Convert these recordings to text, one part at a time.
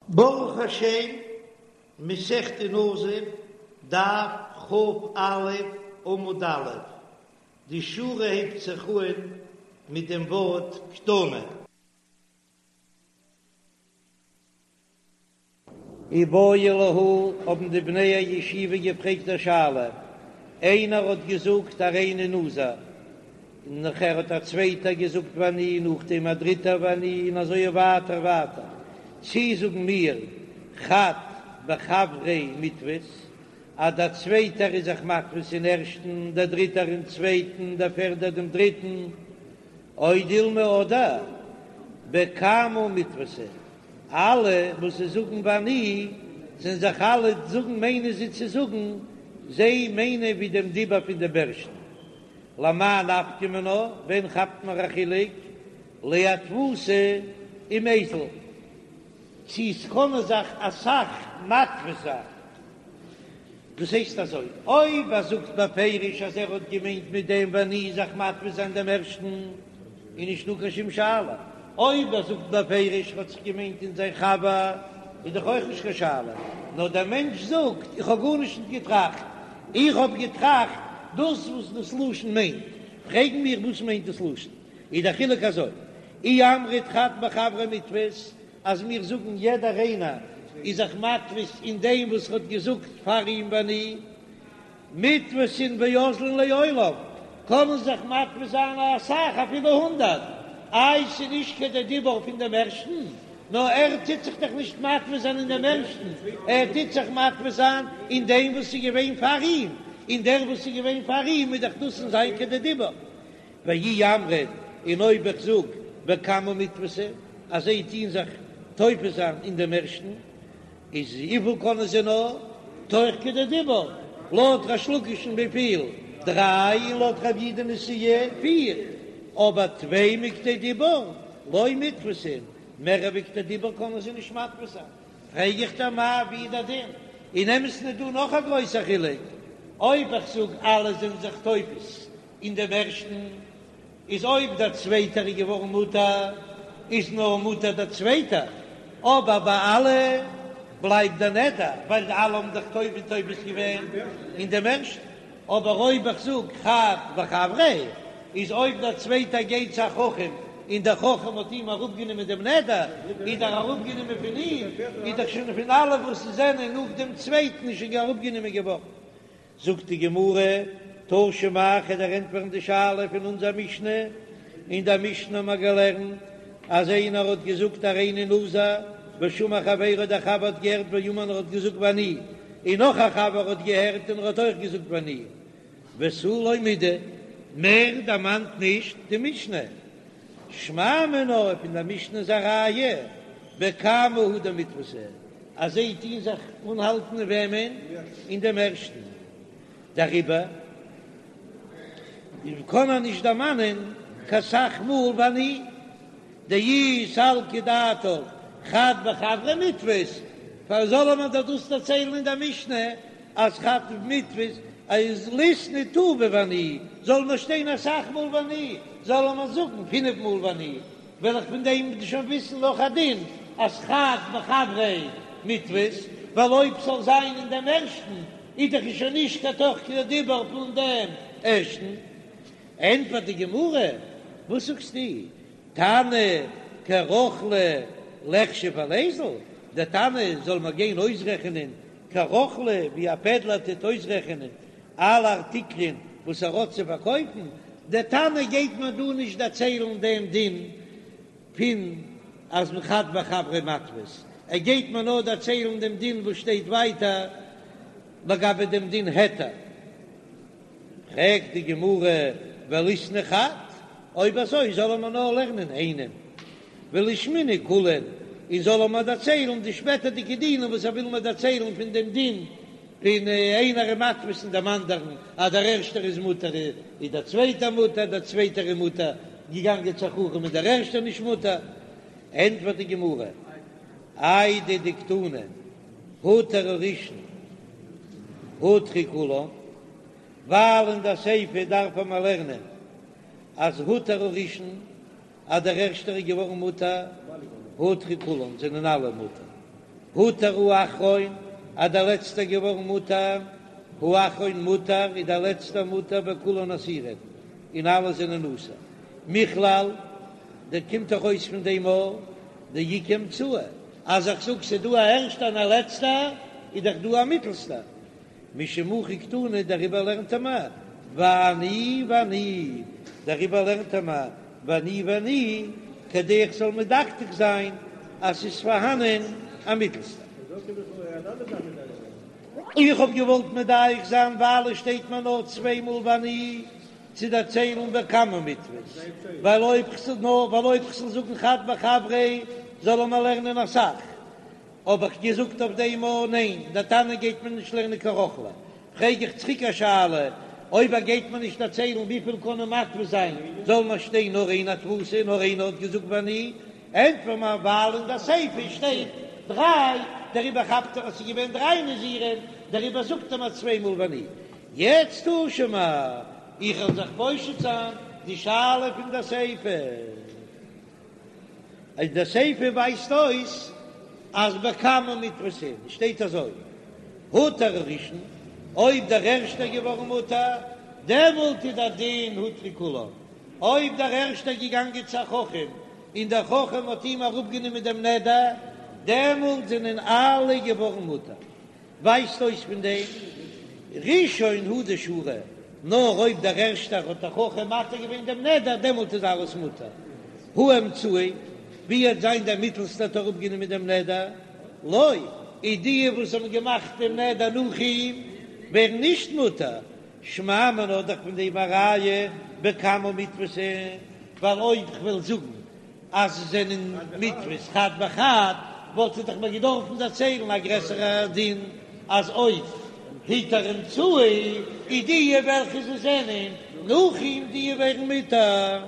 ברוך השם, מסכת נזיר, דף כ"א, עמוד א', די שורה הייבט זיך אן מיט דעם ווארט קתני. איבעיא להו, האבן די בני הישיבה געפרעגט א שאלה, איינער האט געזאגט הריני נזיר, און נאכער האט א צווייטער געזאגט ואני, נאכדעם א דריטער ואני, און אזוי ווייטער ווייטער, צי זאגן מיר חד בחבריה מיתפיס, אז דער צווייטער איז זיך מתפיס אין ערשטן, דער דריטער אין צווייטן, דער פערדער דעם דריטן, או דילמא אדער בקמא מיתפסי. אלע וואס זיי זאגן ואני, זענען זיך אלע זאגן מיינען זיי צו זאגן, זיי מיינען ווי דעם דיבור פון דעם ערשטן. למאי נפקא מינה, ווען כאפט מען א חילוק לאתפוסי ומיזל, צו ס'קענען זיך אסאך מתפיס זיין. דאס הייסט אזוי, אויב ער זאגט בפירוש אז ער האט געמיינט מיט דעם ואני זיך מתפיס זיין דעם ערשטן, איז נישטא קיין שום שאלה, אויב ער זאגט בפירוש האט זיך געמיינט אין זיין חבר, איז דאך אויך נישט קיין שאלה, נאר דער מענטש זאגט איך האב גארנישט נישט געטראכט, איך האב געטראכט דאס וואס דאס לשון מיינט, פרעגן מיר וואס מיינט דאס לשון, איז דער חילוק אזוי, אי אמרת חד בחבריה מיתפיס, אז מיר זאגן יעדער איינער איז זיך מתפיס אין דעם וואס האט געזאגט פאר אים ואני, מיתפסין ואזלין לעולם, קענען זיך מתפיס זיין אסאך אפילו הונדערט, איי ס'איז נישט כדי דיבור פון דעם ערשטן, נאר ער טוט זיך דאך נישט מתפיס זיין אין דעם ערשטן, ער טוט זיך מתפיס זיין אין דעם וואס איז געווען פאר אים, און דער וואס איז געווען פאר אים איז דאך דאס אין זיין כדי דיבור. ואי אמרת, און אויב איך זאג בקמא מיתפסי אז זיי טוהן זיך תופס זיין אין דעם ערשטן, איז וויפיל קענען זיי נאר תוך כדי דיבור, לויט ריש לקיש'ן וויפיל? דריי, און לויט רב יהודה נשיאה פיר, אבער טפי מכדי דיבור לא מיתפסין, מער ווי כדי דיבור קענען זיי נישט מתפיס זיין. פרעג איך דיר מאי ווי איז דער דין? אין אמת'ן איז דא נאך א גרויסער חילוק, אויב איך זאג אלע זענען זיך תופס אין דעם ערשטן איז אויב דער צווייטער איז געווארן מותר איז נאר מותר דער צווייטער, אבער ביי אלע בלייבט דער נדר ווייל אלע האבן זיך תופס תופס געווען אין דעם ערשטן, אבער אויב איך זאג חד בחבריה איז אויב דער צווייטער גייט צו א חכם און דער חכם האט אים אראפגענומען דעם נדר איז דאך אראפגענומען פון אים איז דאך שוין פון אלע וואס זענען נאך דעם צווייטן איז שוין אראפגענומען געווארן. זאגט די גמרא, תא שמע, כ'וועל דיר ענטפערן די שאלה פון אונזער משנה, אין דער משנה האבן מיר געלערנט אז איינער האט געזאגט הריני נזיר, ושמע חברו דער חבר האט געהערט ואמר און ער האט געזאגט ואני, און נאך א חבר האט געהערט און ער האט אויך געזאגט ואני, ותו לא מידי, מער דערמאנט נישט די משנה. שמע מינה, פון דער משנה איז א ראיה בקמא הוא דמיתפסי, אז זיי טוהן זיך אנהאלטן אין וועמען? אין דעם ערשטן. דעריבער קען ער נישט דערמאנען קיין סך מאל ואני דאי סלקא דעתך חד בחבריה מיתפיס, פארוואס זאל מען דאך דאס דערציילן אין דער משנה אז חד מיתפיס איז ליתני טובא ואני, זאל מען שטיין אסאך מאל ואני, זאל מען זאגן פינף מאל ואני, וועל איך פון דעם שוין וויסן נאך א דין אז חד בחבריה מיתפיס, ווייל אויב ס'זאל זיין אין דעם ערשטן איז דאך שוין נישט קיין תוך כדי דיבור פון דעם ערשטן. ענטפערט די גמרא, וואס זאגסטו, תנא כרוכלא ליחשב וליזיל, דער תנא זאל מיר גיין אויסרעכענען כרוכלא ווי א פעדלער טוט אויסרעכענען אלע ארטיקלען וואס ער האט צו פארקויפן, דער תנא גייט מיר דא נישט דערציילן דעם דין פון אז חד בחבריה מיתפיס, ער גייט מיר נאר דערציילן דעם דין וואס שטייט ווייטער לגבי דעם דין היתר. פרעגט די גמרא וליתני חד, אויב אזוי זאל ער מיר נאר לערנען איינעם, ולישמעינהו כולהו, און זאל ער מיר דערציילן די שפעטערדיגע דינים וואס ער וויל מיר דערציילן פון דעם דין פון איינער איז מתפיס אין דעם אנדערן, אז דער ערשטער איז מותר איז דער צווייטער מותר, דער צווייטער איז מותר, געגאנגען צו א חכם איז דער ערשטער נישט מותר. ענטפערט די גמרא, איידי דקתני הותר הראשון הותרו כולן, ווייל אין דער סיפא דארף מען לערנען אז הותר הראשון אז דער ערשטער איז געווארן מותר, הותרו כולן זענען אלע מותר. הותר האחרון, אז דער לעצטער געווארן מותר, האחרון מותר, איז דער לעצטער מותר וכולן אסורין, און אלע זענען אסור. מכלל, דא קומט דאך אויס פון דעם א דאיכא אמצעי, אז איך זאג ס'איז דא א ערשטער און א לעצטער, איז דאך דא א מיטלסטער. משום הכי קתני, דעריבער לערנט ער מיר ואני ואני, דעריבער לערנט ער מיר ואני ואני, כדי איך זאל מדקדק זיין אז ס'איז פארהאנען א מיטלסטער. איך האב געוואלט מדייק זיין ווייל עס שטייט מיר נאר צוויי מאל ואני צו דערציילן בקמה מיתפס, ווייל אויב כ'זאל נאר ווייל אויב כ'זאל זאגן חד בחבריה זאל ער מיר לערנען אסאך, האב איך געזאגט אויף דעם א ניין, דער תנא גייט מיר נישט לערנען קיין רוכלא, פרעג איך צוריק א שאלה, אויב ער גייט מיר נישט דערציילן וויפיל קענען מתפיס זיין, זאל מיר שטיין נאר איין התפסה, נאר איינער האט געזאגט ואני, ענטפער מיר ווייל אין דער סיפא שטייט דריי, דעריבער כאפט ער אז ס'איז געווען דריי נזירים, דעריבער זאגט ער מיר צוויי מאל ואני. יעצט תא שמע, איך וועל זיך פושט זיין די שאלה פון דער סיפא. אז די סיפא ווייזט אויס אז בקמה מיתפסין שטייט אזוי, הותר הראשון, אויב דער ערשטער געווארן מותר, דעמאלט איז דער דין הותרו כולן, אויב דער ערשטער געגאנגען צו א חכם און דער חכם האט אים אראפגענומען דעם נדר, דעמאלט זענען אלע געווארן מותר. ווייזט אויס פון דעם ראשון הוא דשרי, נאר אויב דער ערשטער האט דער חכם מתיר געווען דעם נדר דעמאלט איז אלעס מותר, הא אמצעי, ווי וועט זיין דער מיטלסטער האט אראפגענומען דעם נדר, לא, איז די וואס האבן געמאכט דעם נדר נאך אים ווערן נישט מותר, שמע מינה האט דאך פון דעם א ראיה בקמה מיתפסין, ווייל אויב כ'וועל זאגן אז זיי זענען מיתפס חד בחד, וואלט ער דאך מיר געדארפן דערציילן א גרעסערע דין אז אויב הותר אמצעי איז די וועלכע זיי זענען נאך אים די ווערן מותר.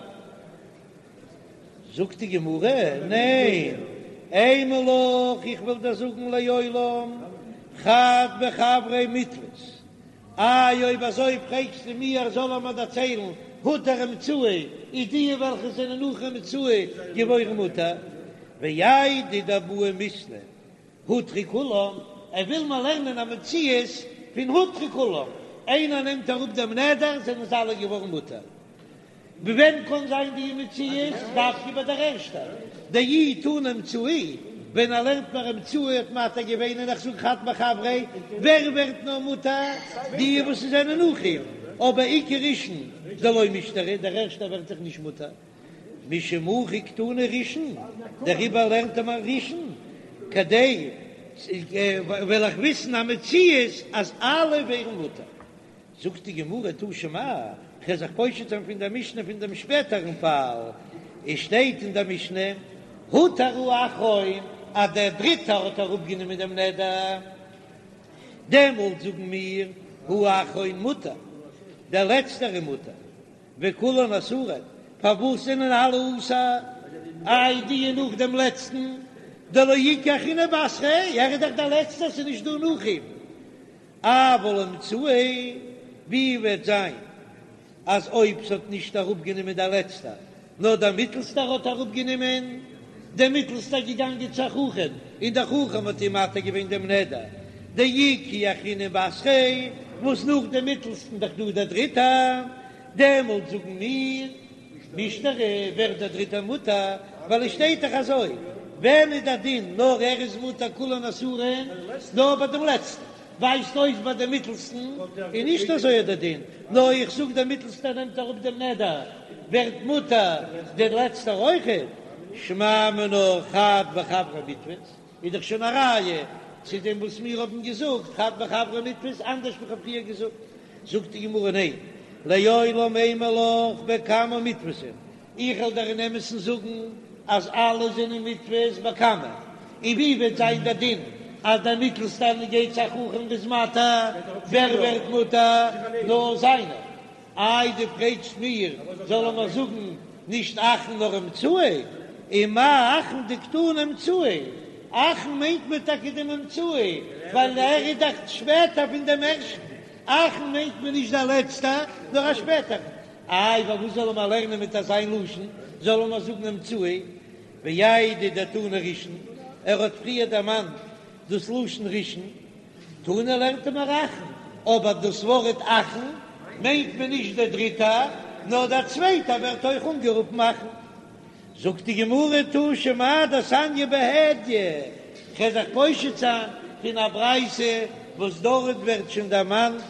זאגט די גמרא, ניין, אימא לך, איך וועל דיר זאגן לעולם חד בחבריה מיתפס, איי אויב אזוי פרעגסטו מיר זאל ער מיר דערציילן הותר אמצעי איז די וועלכע זענען נאך אמצעי געווארן מותר ואיידי דבעי מיתני הותרו כולם, ער וויל מיר לערנען א מציאות פון הותרו כולם, איינער נעמט אראפ דעם נדר זענען זיי אלע געווארן מותר. ווען קאן זיין די מציאות? דווקא ביי דער ערשטער דאי תנא אמצעי, ווען ער לערנט מיר אמצעי האט מתיר געווען און איך זאג חד בחבריה, ווער ווערט נאר מותר? די וואס זענען נאך אים, אבער איכא ראשון דלא מישתרי, דער ערשטער ווערט דאך נישט מותר, משום הכי קתני ראשון, דעריבער לערנט ער מיר ראשון, כדי וועל איך וויסן א מציאות אז אלע ווערן מותר. זאגט די גמרא תא שמע, כ'וועל זיך פושט זיין פון דער משנה פון דעם שפעטערן פאל, עס שטייט אין דער משנה, הותר האחרון, אז דער דריטער האט אראפגענומען דעם נדר, דעמאלט זאגן מיר, האחרון מותר, דער לעצטער איז מותר, וכולן אסורין, פארוואס זענען אלע אסור? איי די נאך דעם לעצטן, דלא איכא אחרינא בתריה, ער איז דאך דער לעצטער, ס'איז נישט דא נאך אים. אבל אמצעי, ווי וועט זיין אז אויב ס'האט נישט אראפגענומען דער לעצטער, נאר דער מיטלסטער האט אראפגענומען, דער מיטלסטער געגאנגען צו א חכם, און דער חכם האט אים מתיר געווען דעם נדר, דאיכא אחרינא בתריה, וואס נאך דעם מיטלסטן דאך דא דער דריטער, דעמאלט זאגן מיר, מישתרי, ווערט דער דריטער מותר, ווייל עס שטייט דאך אזוי, ווען איז דער דין נאר ער איז מותר כולן אסורין, נאר ביי דעם לעצטן, ווייזט אויס ביי דעם מיטלסטן איז נישט אזוי דער דין, נאר איך זאג דער מיטלסטער נעמט אראפ דעם נדר, ווערט מותר דער לעצטער אויכעט, שמע מינה חד בחבריה מיתפס, איז דאך שוין א ראיה צו דעם וואס מיר האבן געזאגט חד בחבריה מיתפס אנדערש ווי כ'האב פריער געזאגט. זאגט די גמרא ניין, לעולם אימא לך בקמה מיתפסין, איך וועל דיר אין אמת'ן זאגן אז אלע זענען מיתפס בקמה, און ווי וועט זיין דער דין אז דער מיטלסטער גייט צו א חכם איז מתיר, ווער ווערט מותר? נאר זיינער. איי דו פרעגסט מיר זאל ער מיר זאגן נישט אחרון נאר אמצעי, ומאי אחרון דקתני אמצעי, אחרון מיינט מען טאקע דעם אמצעי ווייל ער איז דאך שפעטער פון דעם ערשטן, אחרון מיינט מען נישט דער לעצטער נאר א שפעטערן, איי פארוואס זאל ער מיר לערנען מיט אזיין לשון, זאל ער מיר זאגן אמצעי, ואיידי דתנא ראשון, ער האט פריער דערמאנט. דאס לשון ראשון? תנא לערנט ער מיר אחרון, אבער דאס ווארט אחרון מיינט מען נישט דער דריטער, נאר דער צווייטער ווערט אויך אנגערופן אחרון. זאגט די גמרא תא שמע דתניא בהדיא, כ'וועל זיך פושט זיין פון א ברייתא וואס דארט ווערט שוין דערמאנט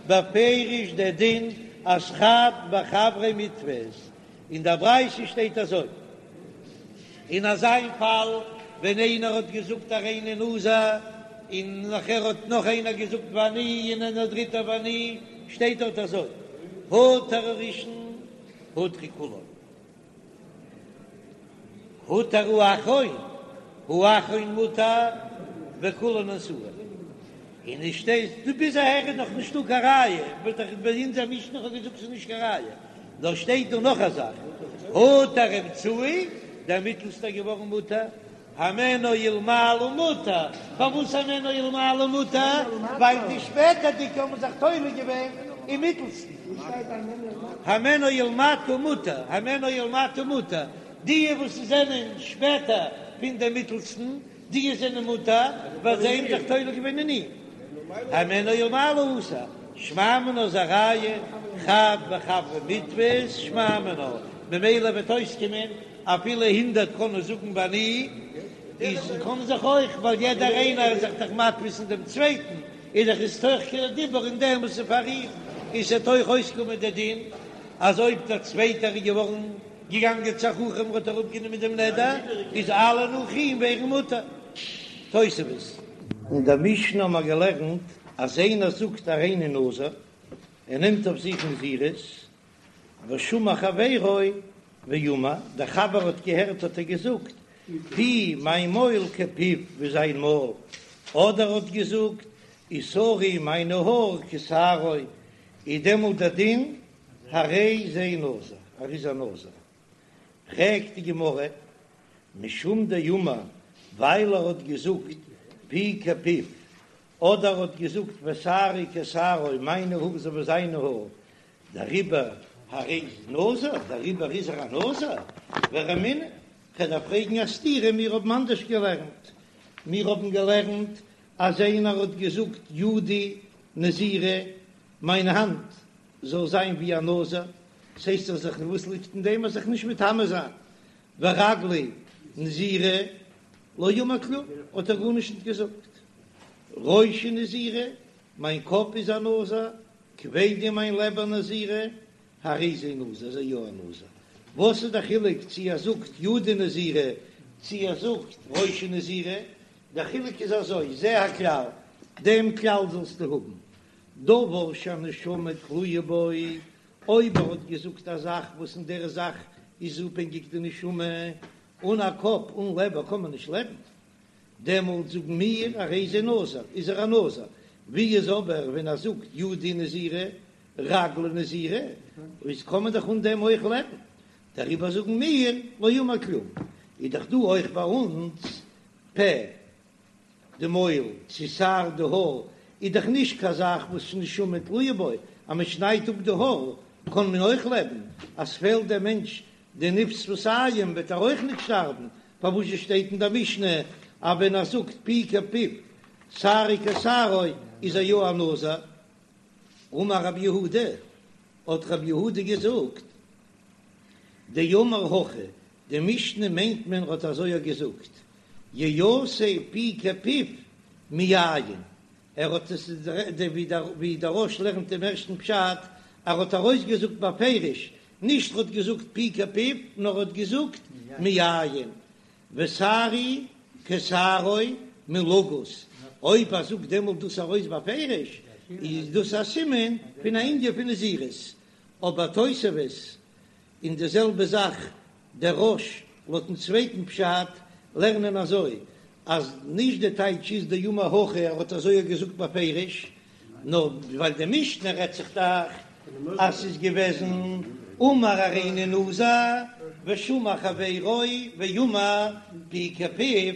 בפירוש דער דין אז חד בחבריה מיתפיס, אין דער ברייתא שטייט אזוי, אין אזא פאל ווען איינער האט געזאגט הריני נזיר און נאכער האט נאך איינער געזאגט ואני און א דריטער ואני, שטייט דארט אזוי, הותר הראשון הותרו כולן. הותר האחרון, האחרון מותר וכולן אסורין. און עס שטייט דא ביז אהער איז נאך נישטא קיין ראיה, וואלט איך ביי אונזער משנה כ'האב געזאגט ס'איז נישט קיין ראיה, נאר שטייט דא נאך א זאך, הותר האמצעי, דער מיטלסטער געווארן מותר, הימנו ולמעלה מותר, פארוואס הימנו ולמעלה מותר? ווייל די שפעטערדיגע האבן זיך תולה געווען אין מיטלסטן. הימנו ולמטה מותר, הימנו ולמטה מותר, די וואס זענען שפעטער פון דעם מיטלסטן, די זענען מותר, ווייל זיי האבן זיך תולה געווען אין אים. הימנו ולמעלה אסור, שמע מינה איז א ראיה, חד בחבריה מיתפיס, שמע מינה, ממילא וועט אויסקומען אפילו הונדערט קענען זאגן ואני, איז קען זיך אויך, ווייל יעדער איינער איז זיך דאך מתפיס אין דעם צווייטן, איז דאך איז תוך כדי דיבור אין דעם וואס איז פאר אים, און ס'וועט אויך אויסקומען דער דין אז אויב דער צווייטער איז געווארן געגאנגען צו א חכם און האט אראפגענומען דעם נדר, איז אלע נאך אים ווערן מותר. תוספות. אין דער משנה האבן מיר געלערנט אז איינער זאגט הריני נזיר, ער נעמט אויף זיך נזירות, ושמע חברו ואמר, דער חבר האט געהערט האט ער געזאגט, פי מיין מויל כפיו ווי זיין מויל, אדער האט געזאגט, ושערי מיינע האר כשערו, איז דעמאלט דער דין הרי זה נזיר, ער איז א נזיר. פרעגט די גמרא, משום דאמר, ווייל ער האט געזאגט פי כפיו, אדער האט געזאגט ושערי כשערו, מיינע האר אזוי ווי זיינע האר, דעריבער הרי זה נזיר, דעריבער איז ער א נזיר, ורמינהו, כ'וועל דיר פרעגן א סתירה, מיר האבן אנדערש געלערנט, מיר האבן געלערנט אז איינער האט געזאגט ידי נזירה, מיין האנט זאל זיין ווי א נזיר, ס'הייסט דאך זיך וואס ליגט אין דעם אז זיך נישט מטמא זיין, ורגלי נזירה, לא אמר כלום, האט ער גארנישט נישט געזאגט, ראשי נזירה, מיין קאפ איז א נזיר, כבדי מיין לעבער נזירה, הרי זה נזיר, איז ער יא א נזיר. וואס איז די חילוק צו ער זאגט ידי נזירה צו ער זאגט ראשי נזירה? דער חילוק איז אזוי, זה הכלל, דעם כלל זאלסטו האבן, דבר שהנשמה תלויה בו, אויב ער האט געזאגט א זאך וואס אין דער זאך איז אפהענגיק די נשמה, אן א קאפ אן לעבער קען מען נישט לעבן, דעמאלט זאגן מיר הרי זה נזיר, איז ער א נזיר, ווי איז אבער ווען ער זאגט ידי נזירה, רגלי נזירה, איז קען מען דאך אן דעם אויך לעבן, דעריבער זאגן מיר לא אמר כלום, איז דאך דא אויך ביי אונז פה די מויל צו שער די האר, איז דאך נישט קיין זאך וואס נשמה תלויה בו, אז מען שניידט אפ די האר קען מען אויך לעבן, אז ס'פעלט דעם מענטש די ניב שפתים וועט ער אויך נישט שטארבן, פארוואס שטייט אין דער משנה אז ווען ער זאגט פי כפיו שערי כשערו איז ער יא א נזיר? אמר רב יהודה, האט רב יהודה געזאגט, דאמר הכי, די משנה מיינט מען האט אזוי געזאגט, יעשה פי כפיו מיין, ער האט עס ווי דער רא"ש לערנט דעם ערשטן פשט, ער האט ארויסגעזאגט בפירוש נישט ר'האט געזאגט פי כפיו, נאר ר'האט געזאגט מיין, ושערי כשערו מלגוז, אויב ער זאגט דעמאלט דאס ארויס בפירוש, איז דאס א סימן פון א ענין פון נזירות, אבער תוספות און די זעלבע זאך דער רא"ש לויטן צווייטן פשט לערנען אזוי אז נישט די טייטש איז דאמר הכי ער האט אזוי געזאגט בפירוש, נאר ווייל די משנה רעדט זיך דאך אז ס'איז געוועזן אמר הריני נזיר ושמע חברו ואמר פי כפיו,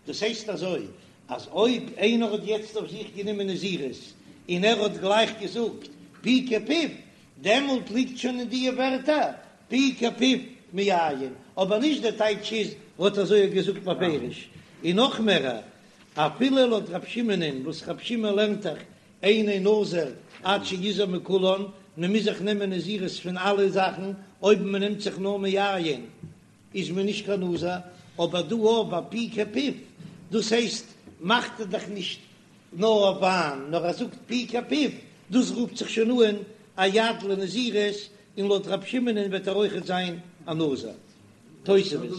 דאס הייסט אזוי אז אויב איינער האט יעצט אויף זיך גענומען נזירות און ער האט גלייך געזאגט פי כפיו, דעמאלט ליגט שוין אין דיע ווערטער פי כפיו מיין, אבער נישט דער טייטש איז ער האט אזוי געזאגט בפירוש, און נאך מער. אפילו לויט רב שמעונ'ען וואס רב שמעון לערנט דאך אינו נזיר עד שיזיר מכולן, מען מוז זיך נעמען נזירות פון אלע זאכן, אויב מען נעמט זיך נאר מיין איז מען נישט קיין נזיר, אבער דא אויף ביי פי כפיו, דאס הייסט מאכט ער דאך נישט נאר אויף וויין, נאר ער זאגט פי כפיו, דאס רופט זיך שוין אן א יד לנזירות, און לויט רב שמעונ'ען וועט ער אויכעט זיין א נזיר. תוספות.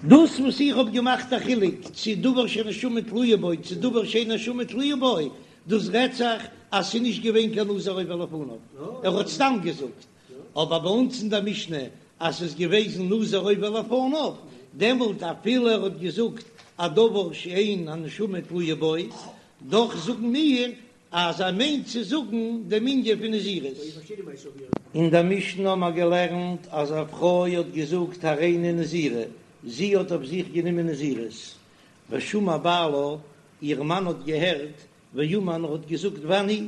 דאס וואס איך האב געמאכט א חילוק צו דבר שנשמה תלויה בו צו דבר שאין נשמה תלויה בו, דאס רעדט זיך אז ס'איז נישט געווען קיין נזיר עובר לפניו, ער האט סתם געזאגט, אבער ביי אונז אין דער משנה אז ס'איז געוועזן נזיר עובר לפניו, דעמאלט אפילו ער האט געזאגט א דבר שאין הנשמה תלויה בו, דאך זאגן מיר אז ער מיינט צו זאגן דעם ענין פון נזירות. אין דער משנה האבן מיר געלערנט אז א פרוי האט געזאגט הריני נזירה, זי האט אויף זיך גענומען נזירות, ושמע בעלה, איר מאן האט געהערט, ואמר און האט געזאגט ואני,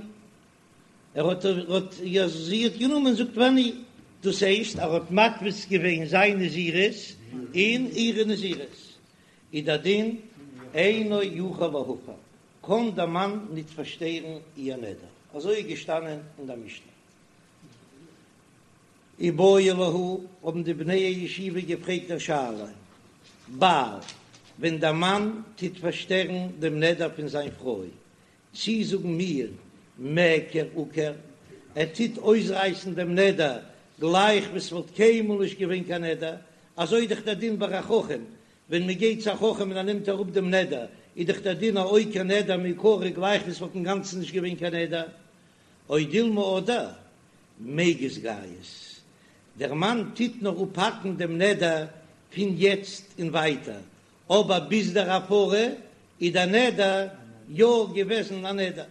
ער האט האט זי האט גענומען זאגט ואני, דאס הייסט ער האט מתפיס געווען זיין נזירות אין אירע נזירות, איז דער דין אינו יכול להפר, קען דער מאן ניט פארשטערן איר נדר, אזוי איז געשטאנען אין דער משנה. איבעיא להו, האבן די בני הישיבה געפרעגט א שאלה, בעל, ווען דער מאן טוט פארשטערן דעם נדר פון זיין פרוי, צי זאגן מיר מיעקר עקר, ער טוט אויסרייסן דעם נדר גלייך ווי ס'וואלט קיינמאל נישט געווען קיין נדר, אזוי איז דאך דער דין ביי א חכם, ווען מען גייט צו א חכם און ער נעמט אראפ דעם נדר, איז דאך דער דין א עוקר נדר מעיקרא גלייך ווי ס'וואלט אינגאנצן נישט געווען קיין נדר, או דילמא אדער מיגז גייז, דער מאן טוט נאר אפהאקן דעם נדר פון יעצט און ווייטער, אבער ביז דער הפרה איז דער נדר יא געוועזן א נדר.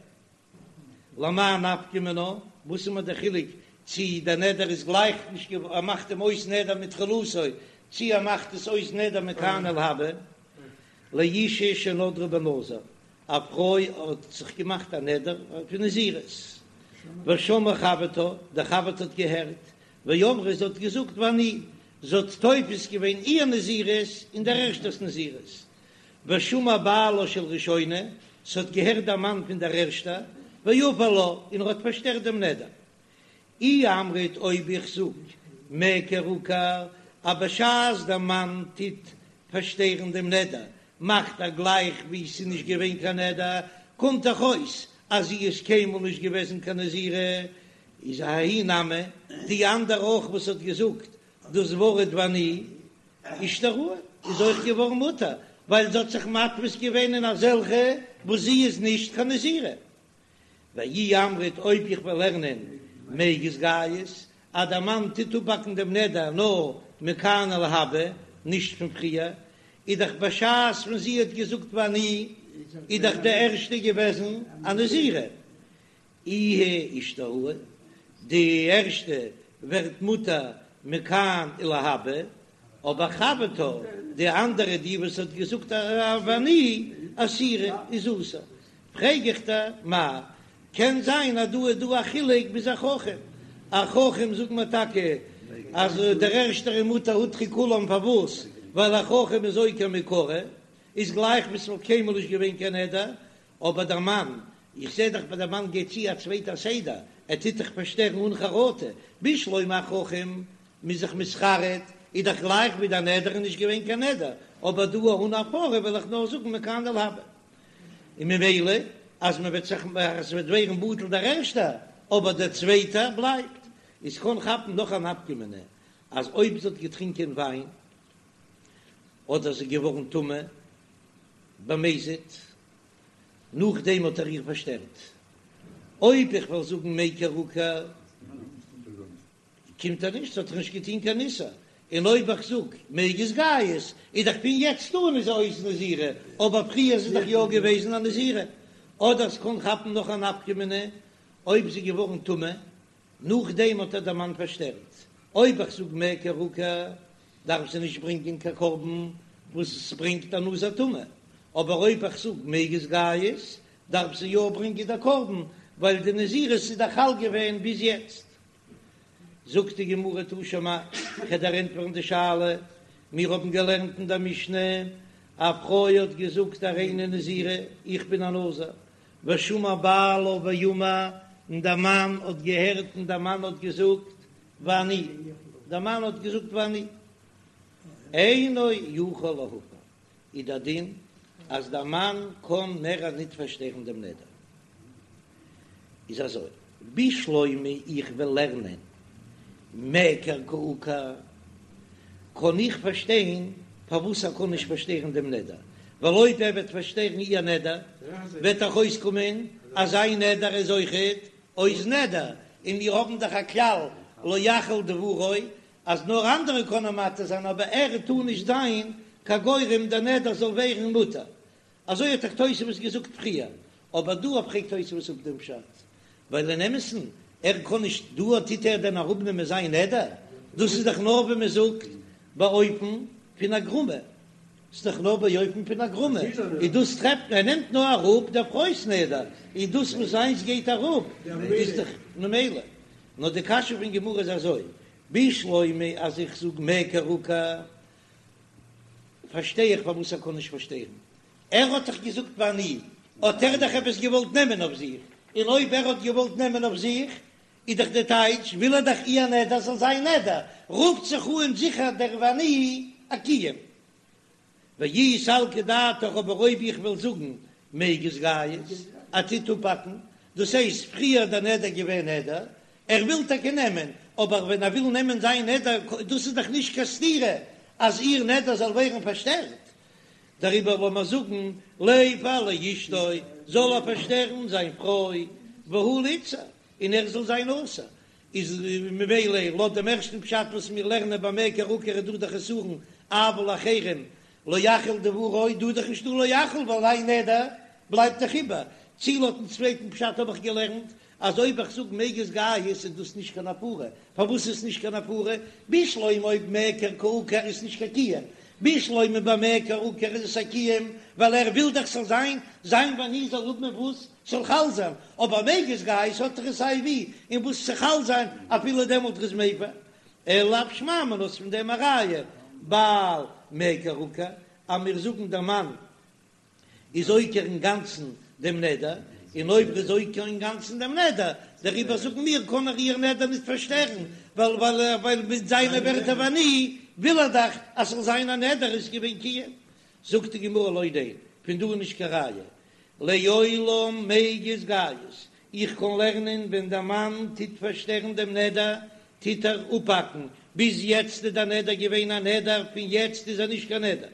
למאי נפקא מינה, וואס איז מיר דער חילוק צי דער נדר איז גלייך נישט געווארן, ער מאכט אים אויס נדר מתחילתו, צי ער מאכט עס אויס נדר מכאן ולהבא. לאשה שנדרה בנזיר, א פרוי האט זיך געמאכט א נדר פון נזירות, ושמעה חברתה, די חבר'טע האט געהערט, ואמרה זי האט געזאגט ואני, זי האט תופס געווען איר נזירות אין דער ערשטער'ס נזירות, ושמע בעלה של ראשונה, ס'האט געהערט דער מאן פון דער ערשטער, והפר לה, און ער האט פארשטערט דעם נדר. אי אמרת אויב איך זאג מיעקר עקר, אז בשעת דער מאן טוט פארשטערן דעם נדר, מאכט ער גלייך ווי ס'איז נישט געווען קיין נדר, קומט דאך אויס אז זי איז קיינמאל נישט געוועזן קיין נזירה, איז ההיא נמי, די אנדערע אויך וואס האט געזאגט דאס ווארט ואני, אישתראי איז אויך געווארן מותר, ווייל זי האט זיך מתפיס געווען אין אזעלכע וואס זי איז נישט קיין נזירה. ואי אמרת אויב איך וועל לערנען מיגז גייז אז דער מאן טוט אפהאקן דעם נדר נאר מכאן ולהבא, נישט פון פריער, איז דאך בשעת ווען זי האט געזאגט ואני איז דאך די ערשטע געוועזן א נזירה, איהי אישתראי, די ערשטע ווערט מותר מכאן ולהבא, אבער חברתה, די אנדערע די וואס האט געזאגט ואני אסירא איז אסור, פרעג איך דיר, מאי, קען זיין אז דא איז דא א חילוק ביז א חכם, א חכם זאגט מען טאקע אז דער ערשטער איז מותר הותרו כולם פארוואס? ווייל א חכם איז עוקר מעיקרא, איז גלייך ווי ס'וואלט קיינמאל נישט געווען קיין נדר, אבער דער מאן, איך זע דאך ביי דער מאן גייט צו א צווייטע סדר, ער טוט דאך פארשטערן אן חרטה, בשלמא א חכם מ'איז זיך מתחרט, איז דאך גלייך ווי דער נדר איז נישט געווען קיין נדר, אבער דא אן הפרה וועל איך נאר זאגן מכאן ולהבא. און ממילא אז מען וועט זיך אז ס'וועט ווערן בטל דער ערשטער, אבער דער צווייטער בלייבט, איז קען כאפן נאך א נפקא מינה, אז אויב זי האט געטרינקען וויין, אדער זי איז געווארן טמא, במזיד, נאכדעם האט ער איר פארשטערט. אויב איך וועל זאגן מיעקר עקר, קומט ער נישט, האט ער נישט געטון קיין איסור. און אויב איך זאג מיגז גייז, איז דאך פון יעצט אן איז זי אויס נזירה, אבער פריער איז זי דאך יא געוועזן א נזירה. אדער ס'קען כאפן נאך א נפקא מינה, אויב זי איז געווארן טמא, נאכדעם האט איר דער מאן פארשטערט. אויב איך זאג מיעקר עקר, דארף זי נישט ברענגען קיין קרבן וואס עס ברענגט א נזיר טמא, אבער אויב איך זאג מיגז גייז, דארף זי יא ברענגען די קרבן, ווייל די נזירות איז דאך חל געווען ביז יעצט. זאגט די גמרא תא שמע, כ'וועל דיר ענטפערן די שאלה, מיר האבן געלערנט אין דער משנה. א פרוי האט געזאגט הריני נזירה, איך בין א נזיר, ושמע בעלה ואמר, און דער מאן האט געהערט און דער מאן האט געזאגט ואני, דער מאן האט געזאגט ואני, אינו יכול להפר, איז דער דין אז דער מאן קען מער ניט פארשטערן דעם נדר. איז אזוי, בשלמא איך וועל לערנען מיעקר קא עקר, קען איך פארשטיין פארוואס ער קען נישט פארשטערן דעם נדר, ווייל אויב ער וועט פארשטערן איר נדר, וועט דאך אויסקומען אז זיין נדר איז אויכעט אויס נדר, און מיר האבן דאך א כלל לא יחל דברו, אז נאר אנדערע קענען מתיר זיין אבער ער טאר נישט זיין קיין גורם דער נדר זאל ווערן מותר, אזוי האט דאך תוספות געזאגט פריער, אבער דא פרעגט תוספות אפ דעם פשט, ווייל אין אמת'ן ער קען נישט, דא טוט ער דען אראפנעמען זיין נדר? דאס איז דאך נאר ווי מען זאגט באופן פון הגרמא, ס'איז דאך נאר באופן פון הגרמא, און דאס טרעפט מען, ער נעמט נאר אראפ דער פרוי'ס נדר, און דאס וואס זיינס גייט אראפ איז דאך ממילא. נאר די קשיא פון גמרא איז אזוי, בשלמא אז איך זאג מיעקר עקר, פארשטיי איך פארוואס ער קען נישט פארשטערן, ער האט דאך געזאגט ואני, האט ער דאך עפעס געוואלט נעמען אויף זיך, און אויב ער האט געוואלט נעמען אויף זיך, איז דאך די טייטש וויל ער דאך איר נדר זאל זיין נדר, רופט זיך אן זיכער דער ואני א קיום. ואי סלקא דעתך אבער אויב איך וועל זאגן מיגז גייז ער טוט אפהאקן, דאס הייסט פריער דער נדר געווען נדר, ער וויל טאקע נעמען, אבער ווען ער וויל נעמען זיין נדר, דאס איז דאך נישט קיין סתירה אז איר נדר זאל ווערן פארשטערט, דעריבער לאמיר זאגן ליפר לאשתו, זאל ער פארשטערן זיין פרוי, והוא ליתסר, און ער זאל זיין אסור, איז ממילא לויט דעם ערשטן פשט וואס מיר לערנען ביי מיעקר עקר איז דא די חסרון אבל לאחרים לא יחל דברו, דא איז דאך נישטא לא יחל ווייל זיין נדר בלייבט דאך איבער, צי לויטן צווייטן פשט האב איך געלערנט אז אויב איך זאג מיגז גייז איז דאס נישט קיין הפרה, פארוואס איז נישט קיין הפרה? בשלמא אויב מיעקר קא עקר איז נישט קיין קיום, בשלמא ביי מיעקר עקר איז עס א קיום ווייל ער וויל דאך ס'זאל זיין זיין ואני זאל האבן וואס ס'זאל חל זיין, אבער מיגז גייז האט ער עס סיי ווי און וואס צו חל זיין אפילו דעמאלט איז מפר, אלא לאו שמע מינה איז פון דעם א ראיה בעל מיעקר עקר אז מיר זאגן דער מאן איז עוקר אינגאנצן דעם נדר, און אויב ער איז עוקר אינגאנצן דעם נדר, דעריבער זאגן מיר קען ער איר נדר נישט פארשטערן, ווייל ווייל מיט זיינע ווערטער ואני וויל ער דאך אז ס'זאל זיין א נדר איז געווען קיום. זאגט די גמרא לא ניין, פון דא איז נישט קיין ראיה, לעולם מיגז גייז, איך קען לערנען ווען דער מאן טוט פארשטערן דעם נדר טוט ער אפהאקן, ביז יעצט איז דער נדר געווען א נדר, פון יעצט איז ער נישט קיין נדר.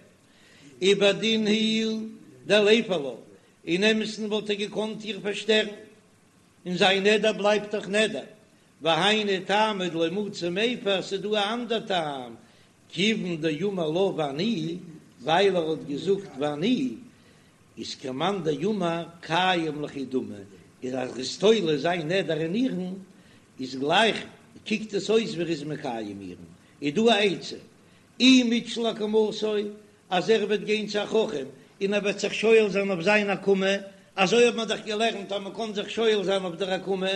ובדין הוא דליפר לה, אין אמת'ן וואלט ער געקאנט איר פארשטערן, און זיין נדר בלייבט דאך נדר, והיינו טעמא דלא מצי מיפר, ס'איז דא א אנדער טעם, כיוון דאמר לה ואני, ווייל ער האט געזאגט ואני, איז כמאן דאמר קיים ליכי דמי, איז אז ער איז תולה זיין נדר אין איר'ן, איז גלייך קוקט עס אויס ווי ער איז מקיים איר'ן, איז דא א עצה, אי מתשיל אקמתו, אז ער וועט גיין צו א חכם און ער וועט זיך שואל זיין אויף זיין הקמה, אזוי האט מען דאך געלערנט אז מען קען זיך שואל זיין אויף דער הקמה,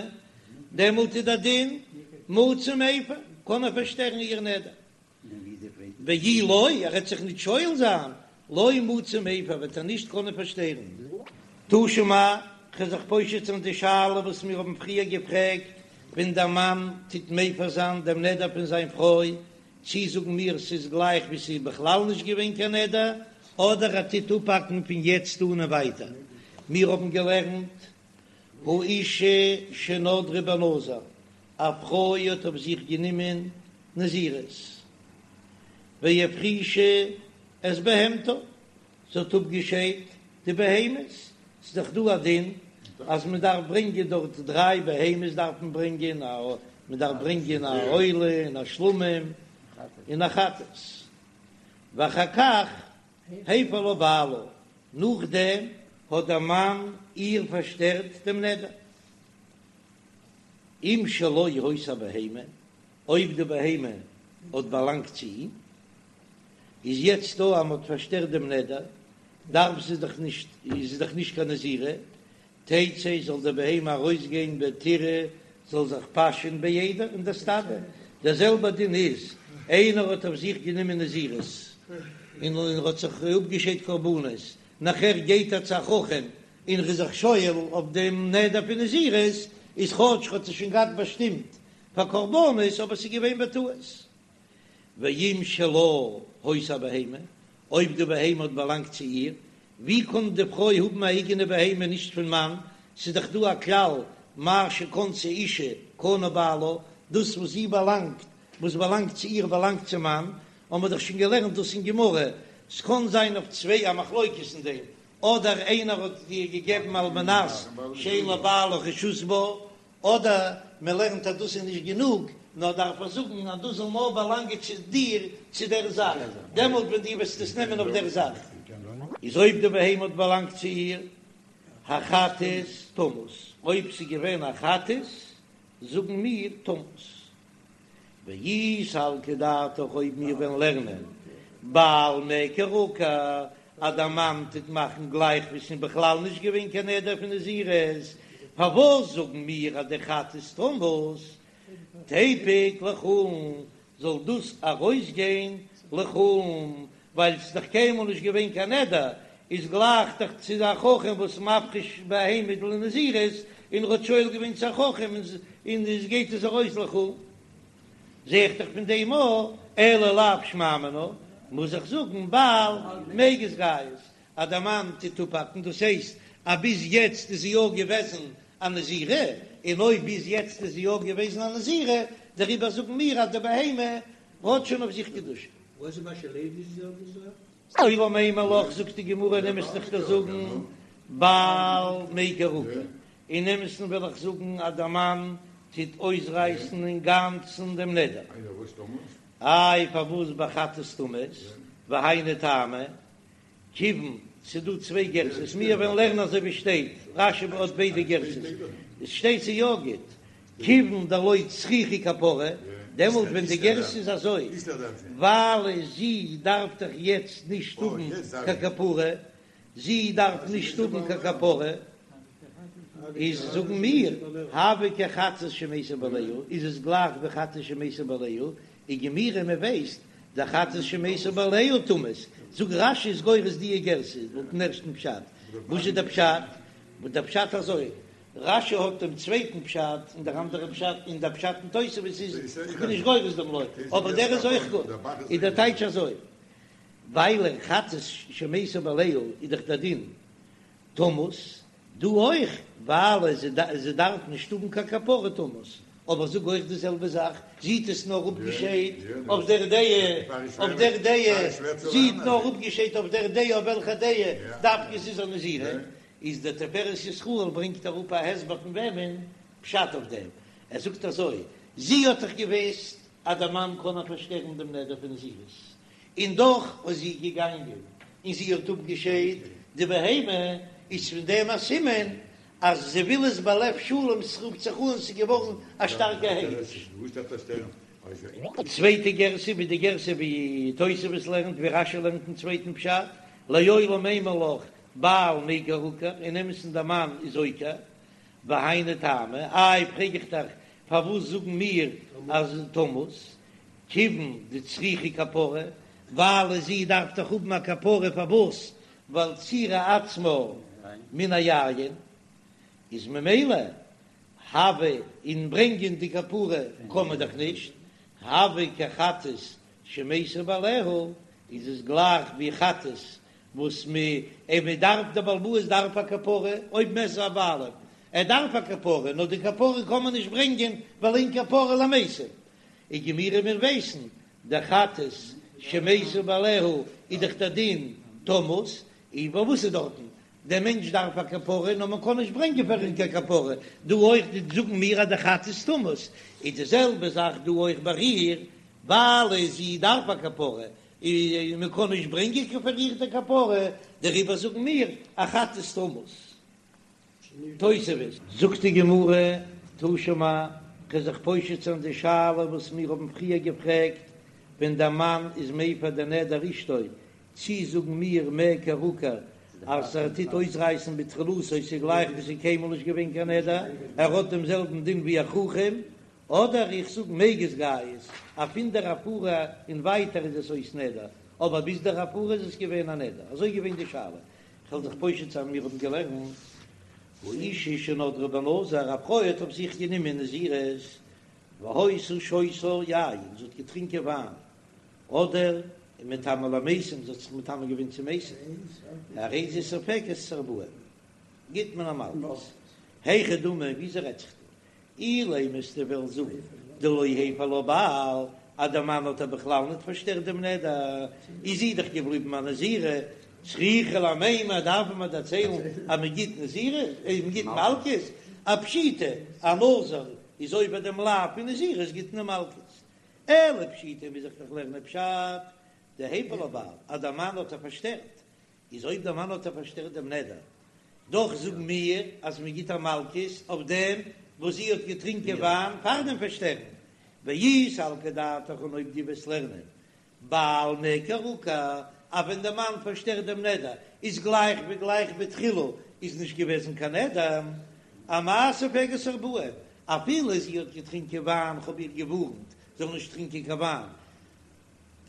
דעמאלט איז דער דין מצי מיפר, קען ער פארשטערן איר נדר. ואי לא, ער וועט זיך נישט שואל זיין, לא מצי מיפר, וועט ער נישט קענען פארשטערן. תא שמע, כ'וועל זיך פושט זיין די שאלה וואס מיר האבן פריער געפרעגט, ווען דער מאן טוט מפר זיין דעם נדר פון זיין פרוי, צי זאגן מיר ס'איז גלייך ווי ס'איז בכלל נישט געווען קיין נדר, אדער ער טוט אפהאקן פון יעצט אן און ווייטער. מיר האבן געלערנט האשה שנדרה בנזיר, א פרוי האט אויף זיך גענומען נזירות, והפרישה את בהמתה, זי האט אפגעשיידט די בהמות, ס'איז דאך דא א דין אז מען דארף ברענגען דארט דריי בהמות דארף מען ברענגען, א מען דארף ברענגען א עולה און א שלמים און א חטאת, ואחר כך הפר לה בעלה, נאכדעם האט דער מאן איר פארשטערט דעם נדר, אם שלו היתה הבהמה, אויב די בהמה האט באלאנגט צו אים, איז יעצט דא אז מען האט פארשטערט דעם נדר, דארף זי דאך נישט, איז זי דאך נישט קיין נזירה, תצא זאל די בהמה ארויסגיין ותרעה זאל זיך פאשען בעדר אין די סטאדע, דער זעלבער דין איז, איינער האט אויף זיך גענומען נזירות. און ער האט זיך אפגעשיידט קרבנות, נאכער גייט ער צו א חכם און ער איז זיך שואל אויף דעם נדר פון נזירות, איז כאטש ער האט עס שוין געהאט באשטימט פאר קרבנות אבער ס'איז געווען בטעות. ואם שלה היתה הבהמה, אויב די בהמה האט באלאנגט צו איר, ווי קען די פרוי האבן א אייגענע בהמה נישט פון מאן, ס'איז דאך דא א כלל מה שקנתה אישה קנה בעלה, דאס וואס זי באלאנגט, וואס באלאנגט צו איר באלאנגט צום מאן, האבן מיר דאך שוין געלערנט דאס אין גמרא, ס'קען זיין אויף צוויי א מחלוקת אין דעם, אדער איינער האט איר געגעבן על מנת שאין לבעלה רשות בה, אדער מען לערנט אז דאס איז נישט גענוג, נאר דארף ער זאגן אז דאס זאל נאר באלאנגען צו דיר צו דער זאך, דעמאלט ווען דו וועסט עס נעמען אויף דער זאך. איז אויב די בהמה האט באלאנגט צו איר, החטאת תמות, אויב ס'איז געווען א חטאת, זאגן מיר תמות. ואי סלקא דעתך אויב מיר וועלן לערנען בעל מיעקר עקר אז דער מאן טוט מאכן גלייך ווי ס'איז בכלל נישט געווען קיין נדר פון נזירות, פארוואס זאגן מיר אז די חטאת תמות תיפוק לחולין זאל דאס ארויסגיין לחולין ווייל ס'איז דאך קיינמאל נישט געווען קיין נדר, איז גלייך דאך צו א חכם וואס מפריש בהמה לנזירות, און ר'האט שואל געווען צו א חכם און עס גייט עס ארויס לחולין. זע איך דאך פון דעם א, אלא לאו שמע מינה, מוז איך זאגן בעל מיגז גייז, אז דער מאן טוט אפהאקן, דאס הייסט אז ביז יעצט איז זי יא געוועזן א נזירה, און אויב ביז יעצט איז זי יא געוועזן א נזירה, דעריבער זאגן מיר אז די בהמה האט שוין אויף זיך קדושה. וואס איז מה שלוי די זעלבע זאך? לעולם אימא לך זאגט די גמרא אין אמת'ן איך דיר זאגן בעל מיעקר עקר, אין אמת'ן וויל איך זאגן אז דער מאן טוט אויסרייסן אינגאנצן דעם נדר, איי פארוואס בחטאת תמות, והיינו טעמא, כיוון ס'דא צוויי גרסאות, מיר וועלן לערנען אזוי ווי שטייט, רש"י האט ביידע גרסאות, עס שטייט ס'איז יא גוט, כיוון דלא צריכה כפרה, דעמאלט ווען די גרסה איז אזוי, ווייל זי דארף דאך יעצט נישט האבן קיין כפרה, זי דארף נישט האבן קיין כפרה, איז זאגן מיר, הוי כחטאת שמתו בעליה, איז עס גלייך ווי חטאת שמתו בעליה, וגמירי מען ווייסט דחטאת שמתו בעליה תמות, זאגט רש"י איז גורס די גרסה לויטן ערשטן פשט, וואס איז דער פשט? דער פשט אזוי, רש"י האט דעם צווייטן פשט און דער אנדערע פשט און דער פשט אין תוספות איז איך בין נישט גורס דעם לא, אבער דער איז אויך גוט, איז דער טייטש אזוי, ווייל חטאת שמתו בעליה איז דאך דער דין תמות, דא אויך, ווייל זי דארף נישט האבן קיין כפרה תמות, אבער זאג אויך די זעלבע זאך, זי האט עס נאר אפגעשיידט אויף דער דעה, אויף דער דעה, זי האט נאר אפגעשיידט אויף דער דעה, אויף וועלכע דעה דווקא זי איז א נזירה, איז דער תפארת ישראל ברענגט אראפ א הסבר פון וועמען פשט אויף דעם, ער זאגט אזוי, זי האט דאך געוואוסט אז דער מאן קען איר פארשטערן דעם נדר פון נזירות, און דאך איז זי געגאנגען און זי האט אפגעשיידט די בהמה, איז פון דעם א סימן אז זי וויל עס בלב שלם, ס'רופט זיך אן ס'איז געווארן א שטארקע הקדש. צווייטע גרסה ווי די גרסה ווי תוספות לערנט ווי רש"י לערנט אין צווייטן פשט, לעולם אימא לך בעל מיעקר עקר, אין אמת'ן דער מאן איז עוקר, והיינו טעמא, איי פרעג איך דיך פארוואס זאגן מיר אז תמות, כיוון דצריכה כפרה, ווייל זי דארף דאך האבן א כפרה פארוואס? ווייל צעירה עצמה מן היין, איז ממילא הוי און ברענגען די כפרה קען מען דאך נישט, הוי כחטאת שמתו בעליה, איז עס גלייך ווי חטאת וואס מען דארף דער בעל הבית דארף א כפרה, אויב מתו הבעלים ער דארף א כפרה, נאר די כפרה קען מען נישט ברענגען ווייל אין כפרה למתים, וגמירי מיר ווייסן דחטאת שמתו בעליה איז דאך דער דין תמות, און וואס איז דארטן? דער מענטש דארף א כפרה נאר מען קען נישט ברענגען פאר אים קיין כפרה, דא אויך זאגן מיר אז די חטאת תמות, איז די זעלבע זאך דא אויך ביי איר, ווייל זי דארף א כפרה און מען קען נישט ברענגען פאר איר די כפרה, דעריבער זאגן מיר א חטאת תמות. תוספות. זאגט די גמרא, תא שמע, כ'וועל זיך פושט זיין די שאלה וואס מיר האבן פריער געפרעגט, ווען דער מאן איז מפר די נדר אשתו, צי זאגן מיר מיעקר עקר אז ער טוט אויסרייסן בתחילתו ס'איז גלייך ווי ס'איז קיינמאל נישט געווען קיין נדר, ער האט דעם זעלבן דין ווי א חכם, אדער איך זאג מיגז גייז, אז פון דער הפרה און ווייטער איז עס אויס נדר. אבער ביז דער הפרה איז עס געווען א נדר, אזוי געווען די שאלה, כ'וועל זיך פושט זיין מיר האבן געלערנט האשה שנדרה בנזיר, א פרוי האט אויף זיך גענומען נזירות, והיתה שותה יין, זי האט געטרינקען וויין, אדער ומטמאה למתים, זי האט זיך מטמא געווען צו מתים, הרי זו סופגת את ארבעים, גיט מען איר מלקות. היכי דמי, וויאזוי רעדט זיך דא? אילימא וועסטו וועלן זאגן דלא הפר לה בעל, אז דער מאן האט איר בכלל ניט פארשטערט דעם נדר, איז זי דאך געבליבן א נזירה, צריכא למימר דארף מען דערציילן אז מען גיט נזירות, מען גיט מלקות, א פשיטא, א נזיר איז עובר דעם לאו פון נזירות גיט מען מלקות. אלא פשיטא מוז איך דאך לערנען פשט דהפר לה בעל אז דער מאן האט איר פארשטערט, איז אויב דער מאן האט איר פארשטערט דעם נדר, דאך זאגן מיר אז מען גיט איר מלקות אויף דעם וואס זי האט געטרינקען וויין פאר דעם פארשטערן, ואי סלקא דעתך און אויב דו וועסט לערנען בעל מיעקר עקר אז ווען דער מאן פארשטערט דעם נדר איז גלייך ווי גלייך בתחילה איז נישט געוועזן קיין נדר, אמאי סופגת ארבעים, אפילו זי האט געטרינקען וויין כ'האב איר געווארנט זאל נישט טרינקען קיין וויין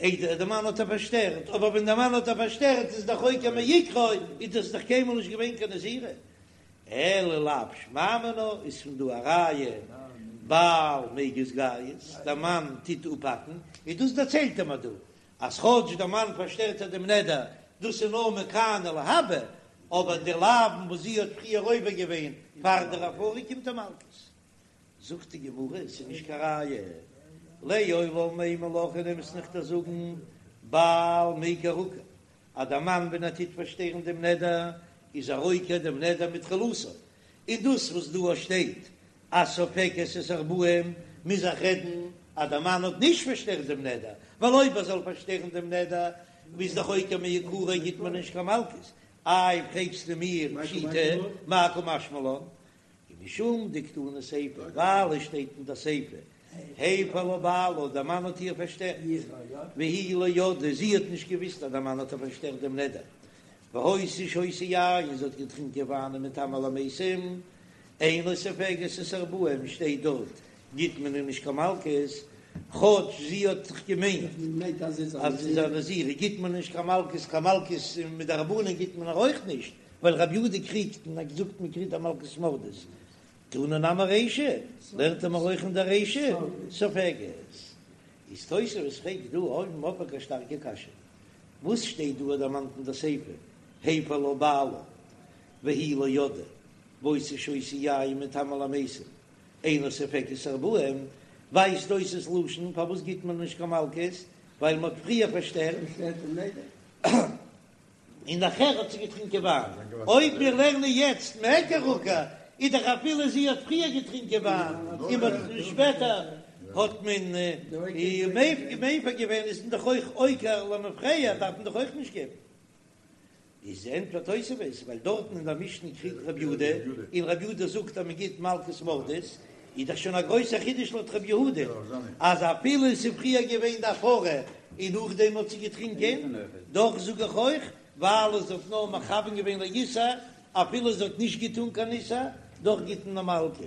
איידער דער מאן האט איר פארשטערט, אבער ווען דער מאן האט איר פארשטערט איז דאך עוקר מעיקרא, איז דאס דאך קיינמאל נישט געווען קיין נזירה, אלא לאו שמע מינה איז פון דא א ראיה בעל מיגז גייז, דער מאן טוט אפהאקן, און דאס דערציילט ער מיר דא, אז כאטש דער מאן פארשטערט איר דעם נדר, דאס איז נאר מכאן ולהבא, אבער די לאווין וואס זי האט פריער עובר געווען פאר דער הפרה קומט איר מלקות. זאגט די גמרא, עס איז נישט קיין ראיה, לעולם אימא לך אין אמת'ן וועל איך דיר זאגן, בעל מיעקר עקר, אז דער מאן ווען ער טוט פארשטערן דעם נדר איז ער עוקר דעם נדר מתחילתו, און דאס וואס דא שטייט אז סופגת את ארבעים מוז איך רעדן אז דער מאן האט נישט פארשטערט דעם נדר, ווייל אויב ער זאל פארשטערן דעם נדר איז דאך עוקר מעיקרא גיט מען נישט קיין מלקות, איי פרעגסטו מיר פשיטא מאי קא משמע לן, ומשום דקתני סיפא, ווייל עס שטייט אין די סיפא, הפר לה בעלה, דער מאן האט איר פארשטערט, והיא לא ידעה, זי האט נישט געוויסט אז דער מאן האט איר פארשטערט דעם נדר, והיתה שותה יין, זי האט געטרינקען וויין ומטמאה למתים, אינה סופגת את ארבעים, שטייט דארט, גיט מען איר נישט קיין מלקות, כאטש זי האט זיך געמיינט אז זי איז א נזירה, גיט מען נישט קיין מלקות, קיין מלקות מדרבנן גיט מען איר אויך נישט, ווייל רבי יהודה קריגט און האט געזאגט מען קריגט א מלקות מרדות, תנא נמי רישא, לערנט מען אויך אין דער רישא, סופגת. איז תוספות פרעגט דא אויבן אויף א שטארקע קשיא, וואס שטייט דא דערמאנט אין דער סיפא, הפר לה בעלה והיא לא ידעה, והיתה שותה יין ומטמאה למתים, אינה סופגת ארבעים, ווייזט אויס ס'לשון פארוואס גיט מען נישט קיין מלקות, ווייל מען האט פריער פארשטערט. און נאכער האט זי געטרינקען וויין, אויב מיר לערנען יעצט מיעקר עקר, איז דאך אפילו זי האט פריער געטרינקען וויין און מען האט שפעטער האט מען איר מפר געווען איז מען דאך אויך עוקר למפרע דארף מען דאך אויך נישט געבן. איז ענטפערט תוספות ווייל דארטן אין דער משנה קריגט רבי יהודה און רבי יהודה זאגט אז מען גיט מלקות מרדות, איז דאך שוין א גרויסער חידוש לויט רבי יהודה אז אפילו עס איז פריער געווען די הפרה און נאכדעם האט זי געטרינקען, דאך זאג איך אויך ווייל זי האט נאר מכוון געווען לאיסור, אפילו זי האט נישט געטון קיין איסור, דאך גיט מען מלקות.